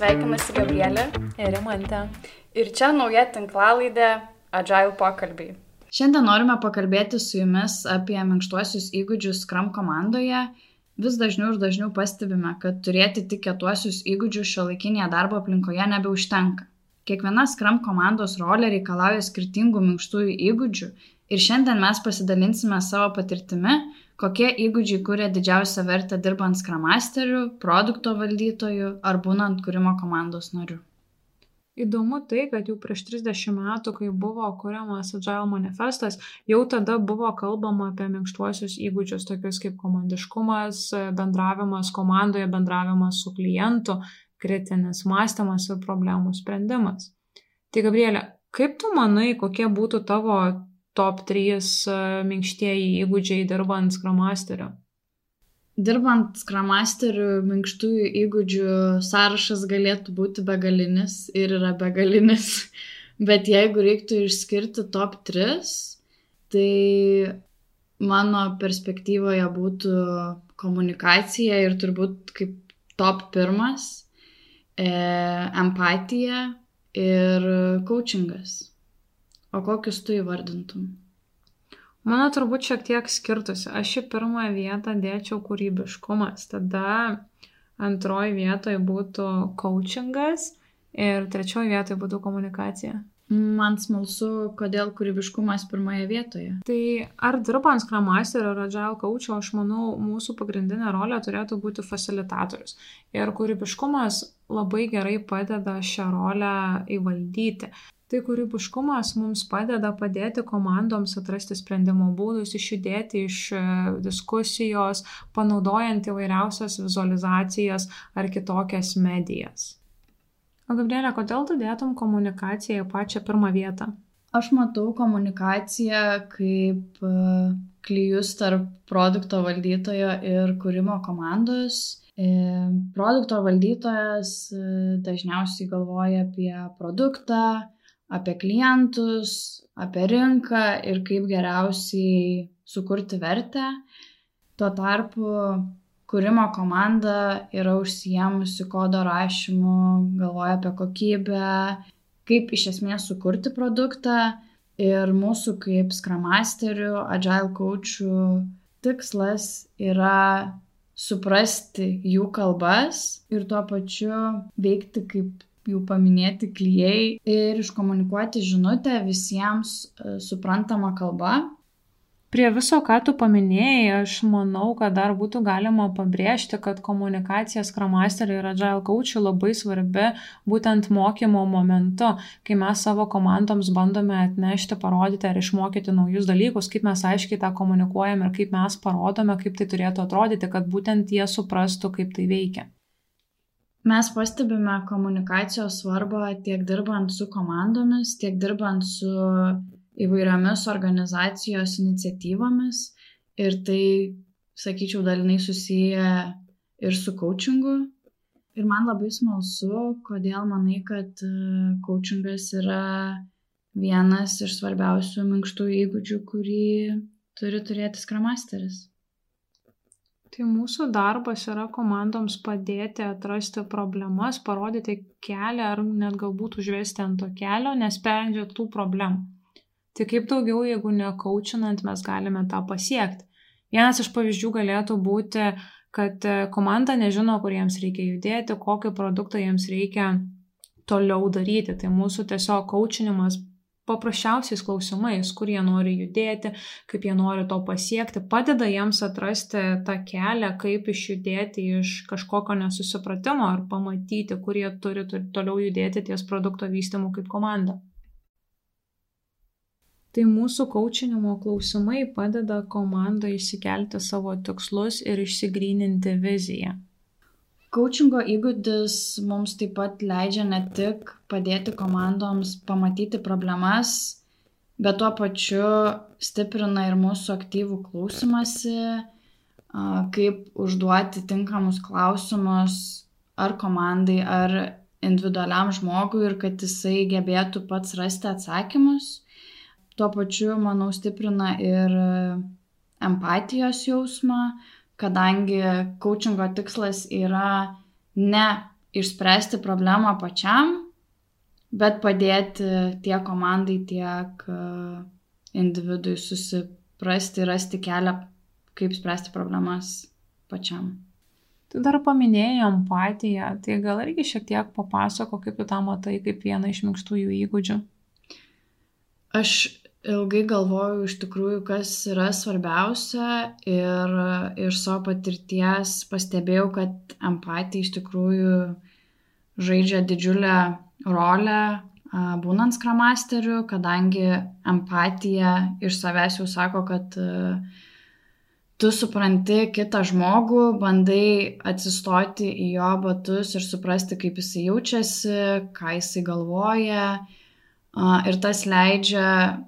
Sveikinasi Gabrielė ir Rimantė. Ir čia nauja tinklalaidė Agile pokalbiai. Šiandien norime pakalbėti su jumis apie minkštuosius įgūdžius Scrum komandoje. Vis dažniau ir dažniau pastebime, kad turėti tik kietuosius įgūdžius šiuolaikinėje darbo aplinkoje nebeužtenka. Kiekviena Scrum komandos rolė reikalauja skirtingų minkštųjų įgūdžių ir šiandien mes pasidalinsime savo patirtimi, kokie įgūdžiai kuria didžiausią vertę dirbant Scrum Masteriu, produkto valdytoju ar būnant kūrimo komandos nariu. Įdomu tai, kad jau prieš 30 metų, kai buvo kuriamas Agile manifestas, jau tada buvo kalbama apie minkštuosius įgūdžius, tokius kaip komandiškumas, bendravimas komandoje, bendravimas su klientu, kritinis mąstymas ir problemų sprendimas. Tai Gabrielė, kaip tu manai, kokie būtų tavo top 3 minkštieji įgūdžiai dirbant Scrum Masteriu? Dirbant Scrum Masteriu, minkštųjų įgūdžių sąrašas galėtų būti begalinis ir yra begalinis, bet jeigu reiktų išskirti top 3, tai mano perspektyvoje būtų komunikacija ir turbūt kaip top 1 empatija ir coachingas. O kokius tu įvardintum? Mano turbūt šiek tiek skirtusi. Aš į pirmąją vietą dėčiau kūrybiškumas, tada antroji vietoje būtų coachingas ir trečioji vietoje būtų komunikacija. Man smalsu, kodėl kūrybiškumas pirmoje vietoje. Tai ar dirbant Scrum Master ar Agile Coach, aš manau, mūsų pagrindinė rolė turėtų būti facilitatorius. Ir kūrybiškumas labai gerai padeda šią rolę įvaldyti. Tai kūrybiškumas mums padeda padėti komandoms atrasti sprendimo būdus, išjudėti iš diskusijos, panaudojant įvairiausias vizualizacijas ar kitokias medijas. O Gabrielė, kodėl tu dėtum komunikaciją į pačią pirmą vietą? Aš matau komunikaciją kaip klijus tarp produkto valdytojo ir kūrimo komandos. Produkto valdytojas dažniausiai galvoja apie produktą, apie klientus, apie rinką ir kaip geriausiai sukurti vertę. Tuo tarpu kūrimo komanda yra užsiėmusi kodo rašymu, galvoja apie kokybę, kaip iš esmės sukurti produktą. Ir mūsų kaip Scrum Masterių, Agile Coachų tikslas yra suprasti jų kalbas ir tuo pačiu veikti kaip jau paminėti klijai ir iškomunikuoti žinutę visiems suprantama kalba. Prie viso, ką tu paminėjai, aš manau, kad dar būtų galima pabrėžti, kad komunikacija Scrum Master ir Agile Coach labai svarbi būtent mokymo momentu, kai mes savo komandoms bandome atnešti, parodyti ar išmokyti naujus dalykus, kaip mes aiškiai tą komunikuojame ir kaip mes parodome, kaip tai turėtų atrodyti, kad būtent jie suprastų, kaip tai veikia. Mes pastebime komunikacijos svarbą tiek dirbant su komandomis, tiek dirbant su įvairiomis organizacijos iniciatyvomis ir tai, sakyčiau, dalinai susiję ir su coachingu. Ir man labai smalsu, kodėl manai, kad coachingas yra vienas iš svarbiausių minkštųjų įgūdžių, kurį turi turėti Scrum Masteris. Tai mūsų darbas yra komandoms padėti atrasti problemas, parodyti kelią ar net galbūt užvesti ant to kelio, nesprendžiant tų problemų. Tai kaip daugiau, jeigu ne coachinant, mes galime tą pasiekti. Vienas iš pavyzdžių galėtų būti, kad komanda nežino, kur jiems reikia judėti, kokį produktą jiems reikia toliau daryti. Tai mūsų tiesiog coachinimas paprasčiausiais klausimais, kur jie nori judėti, kaip jie nori to pasiekti, padeda jiems atrasti tą kelią, kaip išjudėti iš kažkokio nesusipratimo ar pamatyti, kur jie turi toliau judėti ties produkto vystymu kaip komanda. Tai mūsų coachinimo klausimai padeda komandai išsikelti savo tikslus ir išsigryninti viziją. Coachingo įgūdis mums taip pat leidžia ne tik padėti komandoms pamatyti problemas, bet tuo pačiu stiprina ir mūsų aktyvų klausymąsi, kaip užduoti tinkamus klausimus ar komandai, ar individualiam žmogui ir kad jisai gebėtų pats rasti atsakymus. Tuo pačiu, manau, stiprina ir empatijos jausmą, kadangi coachingo tikslas yra ne išspręsti problemą pačiam, bet padėti tiek komandai, tiek individui susiprasti ir rasti kelią, kaip spręsti problemas pačiam. Tu dar paminėjai empatiją, tai gal irgi šiek tiek papasako, kaip tu tą matai kaip vieną iš minkštųjų įgūdžių? Aš ilgai galvojau iš tikrųjų, kas yra svarbiausia ir iš savo patirties pastebėjau, kad empatija iš tikrųjų žaidžia didžiulę rolę būnant Scrum Masteriu, kadangi empatija iš savęs jau sako, kad tu supranti kitą žmogų, bandai atsistoti į jo batus ir suprasti, kaip jisai jaučiasi, ką jisai galvoja. Ir tas leidžia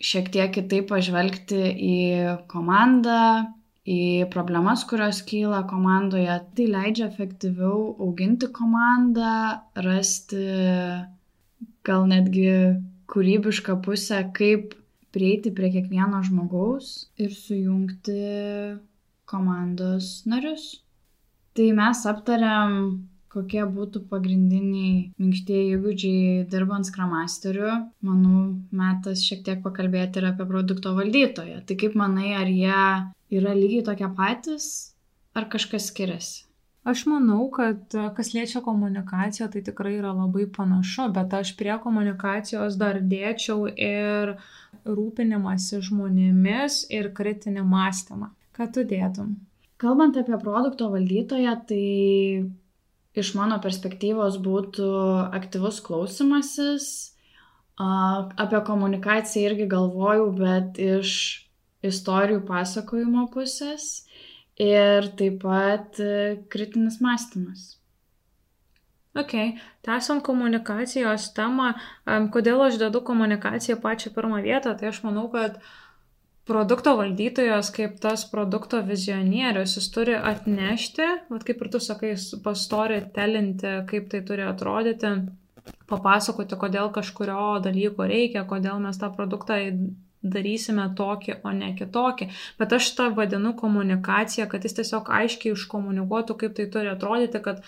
šiek tiek kitaip pažvelgti į komandą, į problemas, kurios kyla komandoje. Tai leidžia efektyviau auginti komandą, rasti gal netgi kūrybišką pusę, kaip prieiti prie kiekvieno žmogaus ir sujungti komandos narius. Tai mes aptariam, kokie būtų pagrindiniai minkštieji įgūdžiai dirbant Scrum Masteriu. Manau, metas šiek tiek pakalbėti ir apie produkto valdytoją. Tai kaip manai, ar jie yra lygiai tokie patys, ar kažkas skiriasi? Aš manau, kad kas liečia komunikaciją, tai tikrai yra labai panašu, bet aš prie komunikacijos dar dėčiau ir rūpinimąsi žmonėmis ir kritinį mąstymą. Ką tu dėtum? Kalbant apie produkto valdytoją, tai iš mano perspektyvos būtų aktyvus klausymasis. Apie komunikaciją irgi galvojau, bet iš istorijų pasakojimo pusės. Ir taip pat kritinis mąstymas. Ok, tęsiant komunikacijos temą, kodėl aš dedu komunikaciją pačią pirmą vietą, tai aš manau, kad produkto valdytojas kaip tas produkto vizionierius, jis turi atnešti, kaip ir tu sakai, storytellinti, kaip tai turi atrodyti, papasakoti, kodėl kažkurio dalyko reikia, kodėl mes tą produktą darysime tokį, o ne kitokį. Bet aš tą vadinu komunikaciją, kad jis tiesiog aiškiai iškomunikuotų, kaip tai turi atrodyti, kad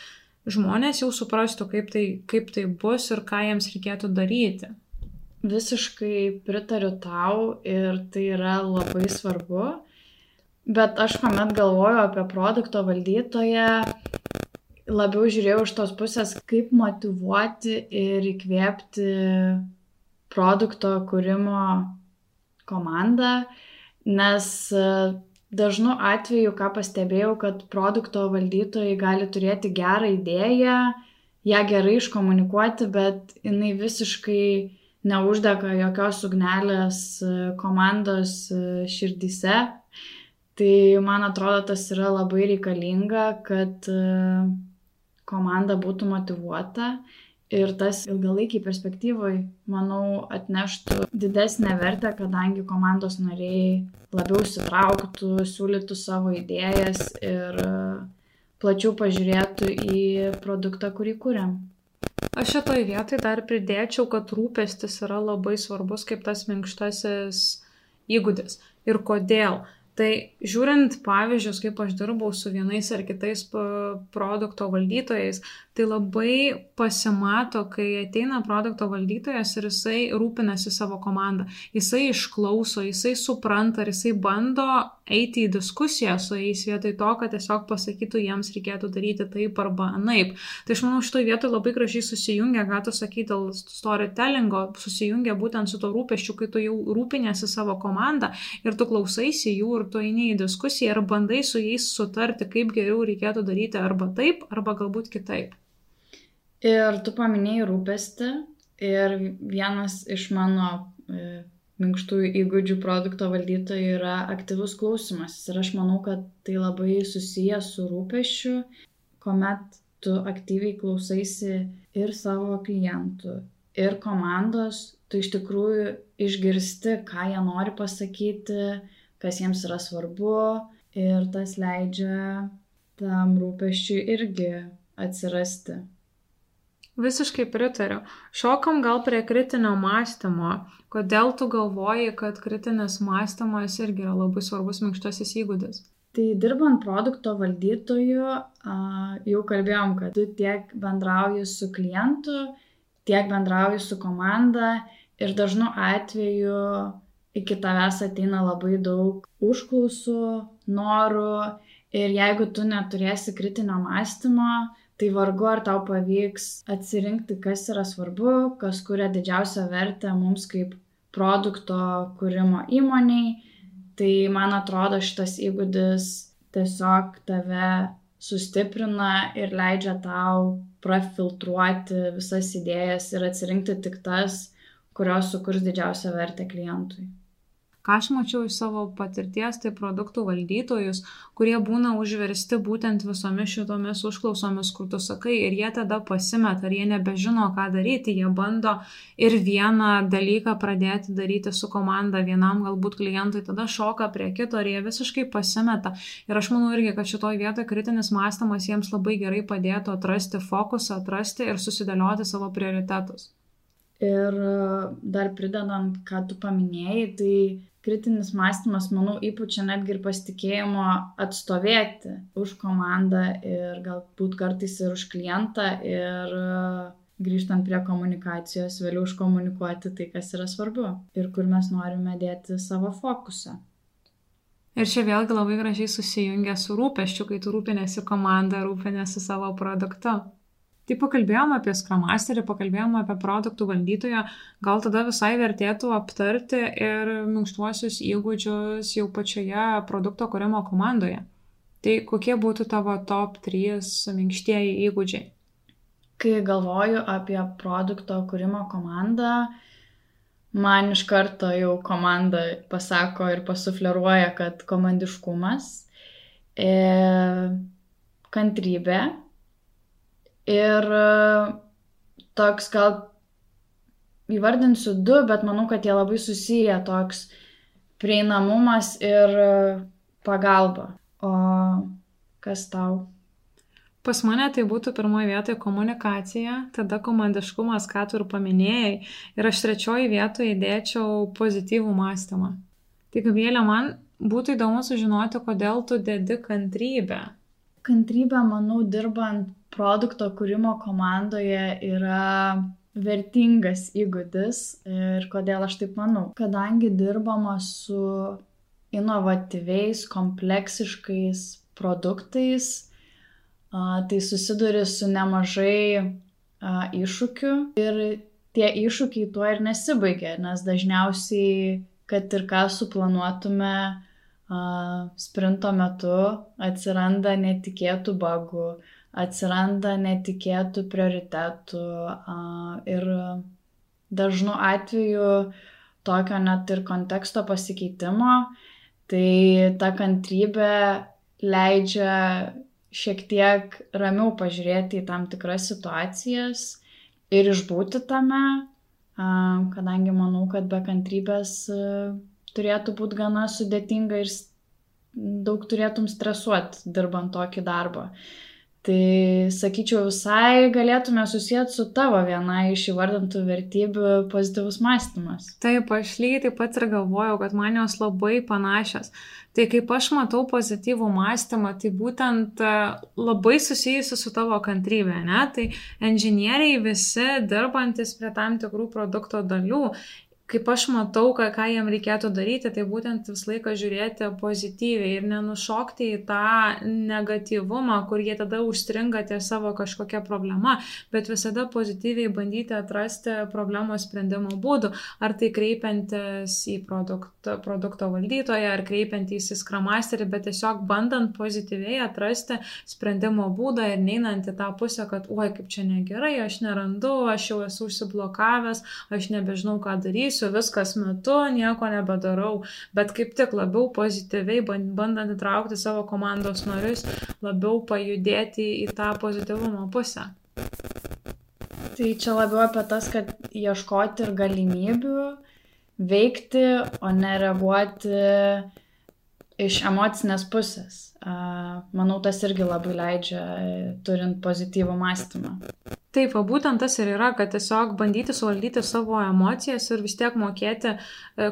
žmonės jau suprastų, kaip tai bus ir ką jiems reikėtų daryti. Visiškai pritariu tau ir tai yra labai svarbu. Bet aš kuomet galvoju apie produkto valdytoją, labiau žiūrėjau iš tos pusės, kaip motyvuoti ir įkvėpti produkto kūrimo komandą, nes dažnu atveju, ką pastebėjau, kad produkto valdytojai gali turėti gerą idėją, ją gerai iškomunikuoti, bet jinai visiškai neuždega jokios ugnelės komandos širdyse. Tai man atrodo, tas yra labai reikalinga, kad komanda būtų motyvuota. Ir tas ilgalaikiai perspektyvoj, manau, atneštų didesnę vertę, kadangi komandos nariai labiau įsitrauktų, siūlytų savo idėjas ir plačiau pažiūrėtų į produktą, kurį kuriam. Aš šitoj vietoj dar pridėčiau, kad rūpestis yra labai svarbus kaip tas minkštasis įgūdis. Ir kodėl? Tai žiūrint pavyzdžius, kaip aš dirbau su vienais ar kitais produkto valdytojais, tai labai pasimato, kai ateina produkto valdytojas ir jisai rūpinasi savo komandą. Jisai išklauso, jisai supranta ir jisai bando eiti į diskusiją su jais vietoj to, kad tiesiog pasakytų, jiems reikėtų daryti taip arba anaip. Tai aš manau, šitoj vietoj labai gražiai susijungia, ką tu sakai dėl storytellingo, susijungia būtent su to rūpesčiu, kai tu jau rūpinėsi savo komandą ir tu klausaisi jų ir tu eini į diskusiją ir bandai su jais sutarti, kaip geriau reikėtų daryti arba taip, arba galbūt kitaip. Ir tu paminėjai rūpestį ir vienas iš mano minkštųjų įgūdžių produkto valdytojų yra aktyvus klausimas. Ir aš manau, kad tai labai susijęs su rūpesčiu, kuomet tu aktyviai klausaisi ir savo klientų, ir komandos, tu iš tikrųjų išgirsti, ką jie nori pasakyti, kas jiems yra svarbu, ir tas leidžia tam rūpesčiui irgi atsirasti. Visiškai pritariu. Šokam gal prie kritinio mąstymo. Kodėl tu galvoji, kad kritinis mąstymas irgi yra labai svarbus minkštasis įgūdis? Tai dirbant produkto valdytoju, jau kalbėjom, kad tu tiek bendrauji su klientu, tiek bendrauji su komanda ir dažnu atveju iki tavęs ateina labai daug užklausų, norų ir jeigu tu neturėsi kritinio mąstymo, tai vargu ar tau pavyks atsirinkti, kas yra svarbu, kas kuria didžiausią vertę mums kaip produkto kūrimo įmoniai. Tai man atrodo šitas įgūdis tiesiog tave sustiprina ir leidžia tau prafiltruoti visas idėjas ir atsirinkti tik tas, kurios sukurs didžiausią vertę klientui. Ką aš mačiau iš savo patirties, tai produktų valdytojus, kurie būna užversti būtent visomis šitomis užklausomis, kur tu sakai, ir jie tada pasimeta, ar jie nebežino, ką daryti, jie bando ir vieną dalyką pradėti daryti su komanda, vienam galbūt klientui, tada šoka prie kito ir jie visiškai pasimeta. Ir aš manau irgi, kad šitoj vietoje kritinis mąstymas jiems labai gerai padėtų atrasti fokusą, atrasti ir susidėlioti savo prioritetus. Ir dar pridedant, ką tu paminėjai, tai kritinis mąstymas, manau, įpučia netgi ir pasitikėjimo atstovėti už komandą ir galbūt kartais ir už klientą ir grįžtant prie komunikacijos, vėliau iškomunikuoti tai, kas yra svarbu ir kur mes norime dėti savo fokusą. Ir čia vėlgi labai gražiai susijungia su rūpesčiu, kai tu rūpinėsi komandą, rūpinėsi savo produktu. Tai pakalbėjom apie Scrum Masterį, pakalbėjom apie produktų valdytoją, gal tada visai vertėtų aptarti ir minkštuosius įgūdžius jau pačioje produkto kūrimo komandoje. Tai kokie būtų tavo top 3 minkštieji įgūdžiai? Kai galvoju apie produkto kūrimo komandą, man iš karto jau komanda pasako ir pasufleruoja, kad komandiškumas, kantrybė, ir toks gal įvardinsiu 2, bet manau, kad jie labai susiję, toks prieinamumas ir pagalba. O kas tau? Pas mane tai būtų pirmoje vietoje komunikacija, tada komandiškumas, ką tu ir paminėjai, ir aš 3 vietoje įdėčiau pozityvų mąstymą. Tai Gabrielė, man būtų įdomu sužinoti, kodėl tu dedi kantrybę. Kantrybė, manau, dirbant produkto kūrimo komandoje yra vertingas įgūdis ir kodėl aš taip manau. Kadangi dirbama su inovatyviais, kompleksiškais produktais, tai susiduri su nemažai iššūkių ir tie iššūkiai tuo ir nesibaigia, nes dažniausiai, kad ir ką suplanuotume, sprinto metu atsiranda netikėtų bugų, atsiranda netikėtų prioritetų ir dažnu atveju tokio net ir konteksto pasikeitimo, tai ta kantrybė leidžia šiek tiek ramiau pažiūrėti į tam tikras situacijas ir išbūti tame, kadangi manau, kad be kantrybės turėtų būti gana sudėtinga ir daug turėtum stresuoti dirbant tokį darbą. Tai sakyčiau, visai galėtume susijęti su tavo viena iš įvardintų vertybių pozityvus mąstymas. Taip, aš lygiai taip pat ir galvojau, kad man jos labai panašios. Tai kaip aš matau pozityvų mąstymą, tai būtent labai susijusi su tavo kantrybė, ne? Tai inžinieriai visi dirbantis prie tam tikrų produkto dalių, kaip aš matau, ką jiem reikėtų daryti, tai būtent visą laiką žiūrėti pozityviai ir nenušokti į tą negatyvumą, kur jie tada užstringa ties savo kažkokia problema, bet visada pozityviai bandyti atrasti problemos sprendimo būdų, ar tai kreipiantis į produkto valdytoją, ar kreipiantis į Scrum Masterį, bet tiesiog bandant pozityviai atrasti sprendimo būdą ir neinant į tą pusę, kad oi, kaip čia negerai, aš nerandu, aš jau esu užsiblokavęs, aš nebežinau, ką darysiu, viskas metu, nieko nebedarau, bet kaip tik labiau pozityviai, bandant įtraukti savo komandos narius, labiau pajudėti į tą pozityvumo pusę. Tai čia labiau apie tas, kad ieškoti ir galimybių veikti, o ne reaguoti iš emocinės pusės. Manau, tas irgi labai leidžia, turint pozityvų mąstymą. Taip, va būtent tas ir yra, kad tiesiog bandyti suvaldyti savo emocijas ir vis tiek mokėti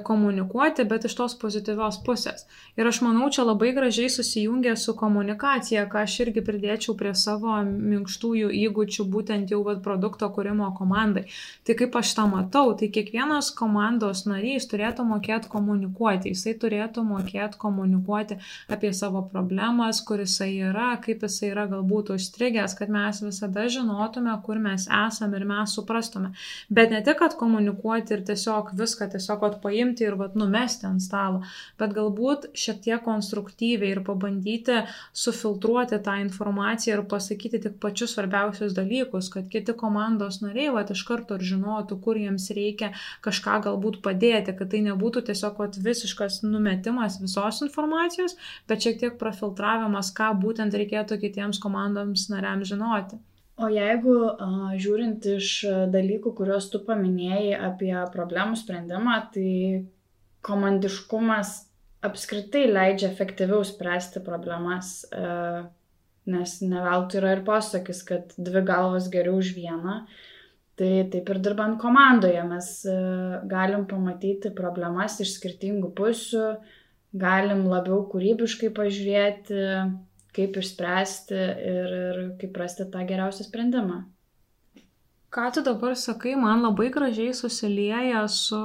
komunikuoti, bet iš tos pozityvios pusės. Ir aš manau, čia labai gražiai susijungia su komunikacija, ką aš irgi pridėčiau prie savo minkštųjų įgūdžių, būtent jau produkto kūrimo komandai. Tai kaip aš tą matau, tai kiekvienas komandos narys turėtų mokėti komunikuoti, jisai turėtų mokėti komunikuoti apie savo problemas, kur jisai yra, kaip jisai yra galbūt užstrigęs, kad mes visada žinotume, kur mes esame ir mes suprastume. Bet ne tik, kad komunikuoti ir tiesiog viską tiesiog paimti ir numesti ant stalo, bet galbūt šiek tiek konstruktyviai ir pabandyti sufiltruoti tą informaciją ir pasakyti tik pačius svarbiausius dalykus, kad kiti komandos nariai iš karto ir žinotų, kur jiems reikia kažką galbūt padėti, kad tai nebūtų tiesiog visiškas numetimas visos informacijos, bet šiek tiek profiltravimas, ką būtent reikėtų kitiems komandoms nariams žinoti. O jeigu žiūrint iš dalykų, kuriuos tu paminėjai apie problemų sprendimą, tai komandiškumas apskritai leidžia efektyviau spręsti problemas, nes ne veltui yra ir posakis, kad 2 galvos geriau už vieną. Tai taip ir dirbant komandoje mes galim pamatyti problemas iš skirtingų pusių, galim labiau kūrybiškai pažiūrėti, kaip išspręsti ir kaip rasti tą geriausią sprendimą. Ką tu dabar sakai, man labai gražiai susilieja su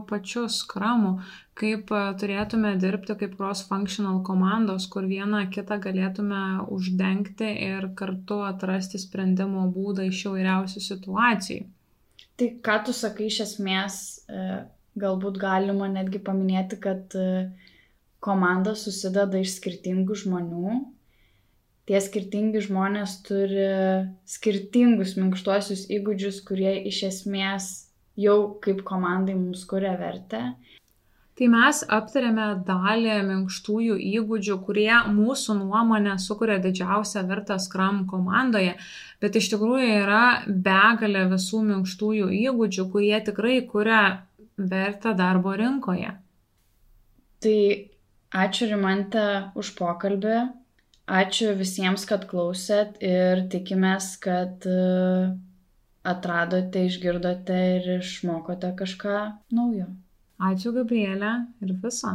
pačiu skramu, kaip turėtume dirbti kaip cross-functional komandos, kur vieną kitą galėtume uždengti ir kartu atrasti sprendimo būdą iš įvairiausių situacijų. Tai ką tu sakai iš esmės, galbūt galima netgi paminėti, kad komanda susideda iš skirtingų žmonių. Tie skirtingi žmonės turi skirtingus minkštuosius įgūdžius, kurie iš esmės jau kaip komandai mums kuria vertę. Tai mes aptarėme dalį minkštųjų įgūdžių, kurie mūsų nuomonė sukuria didžiausią vertę Scrum komandoje, bet iš tikrųjų yra begalė visų minkštųjų įgūdžių, kurie tikrai kuria vertę darbo rinkoje. Tai ačiū Rimante už pokalbį. Ačiū visiems, kad klausėt ir tikimės, kad atradote, išgirdote ir išmokote kažką naujo. Ačiū Gabrielė ir viso.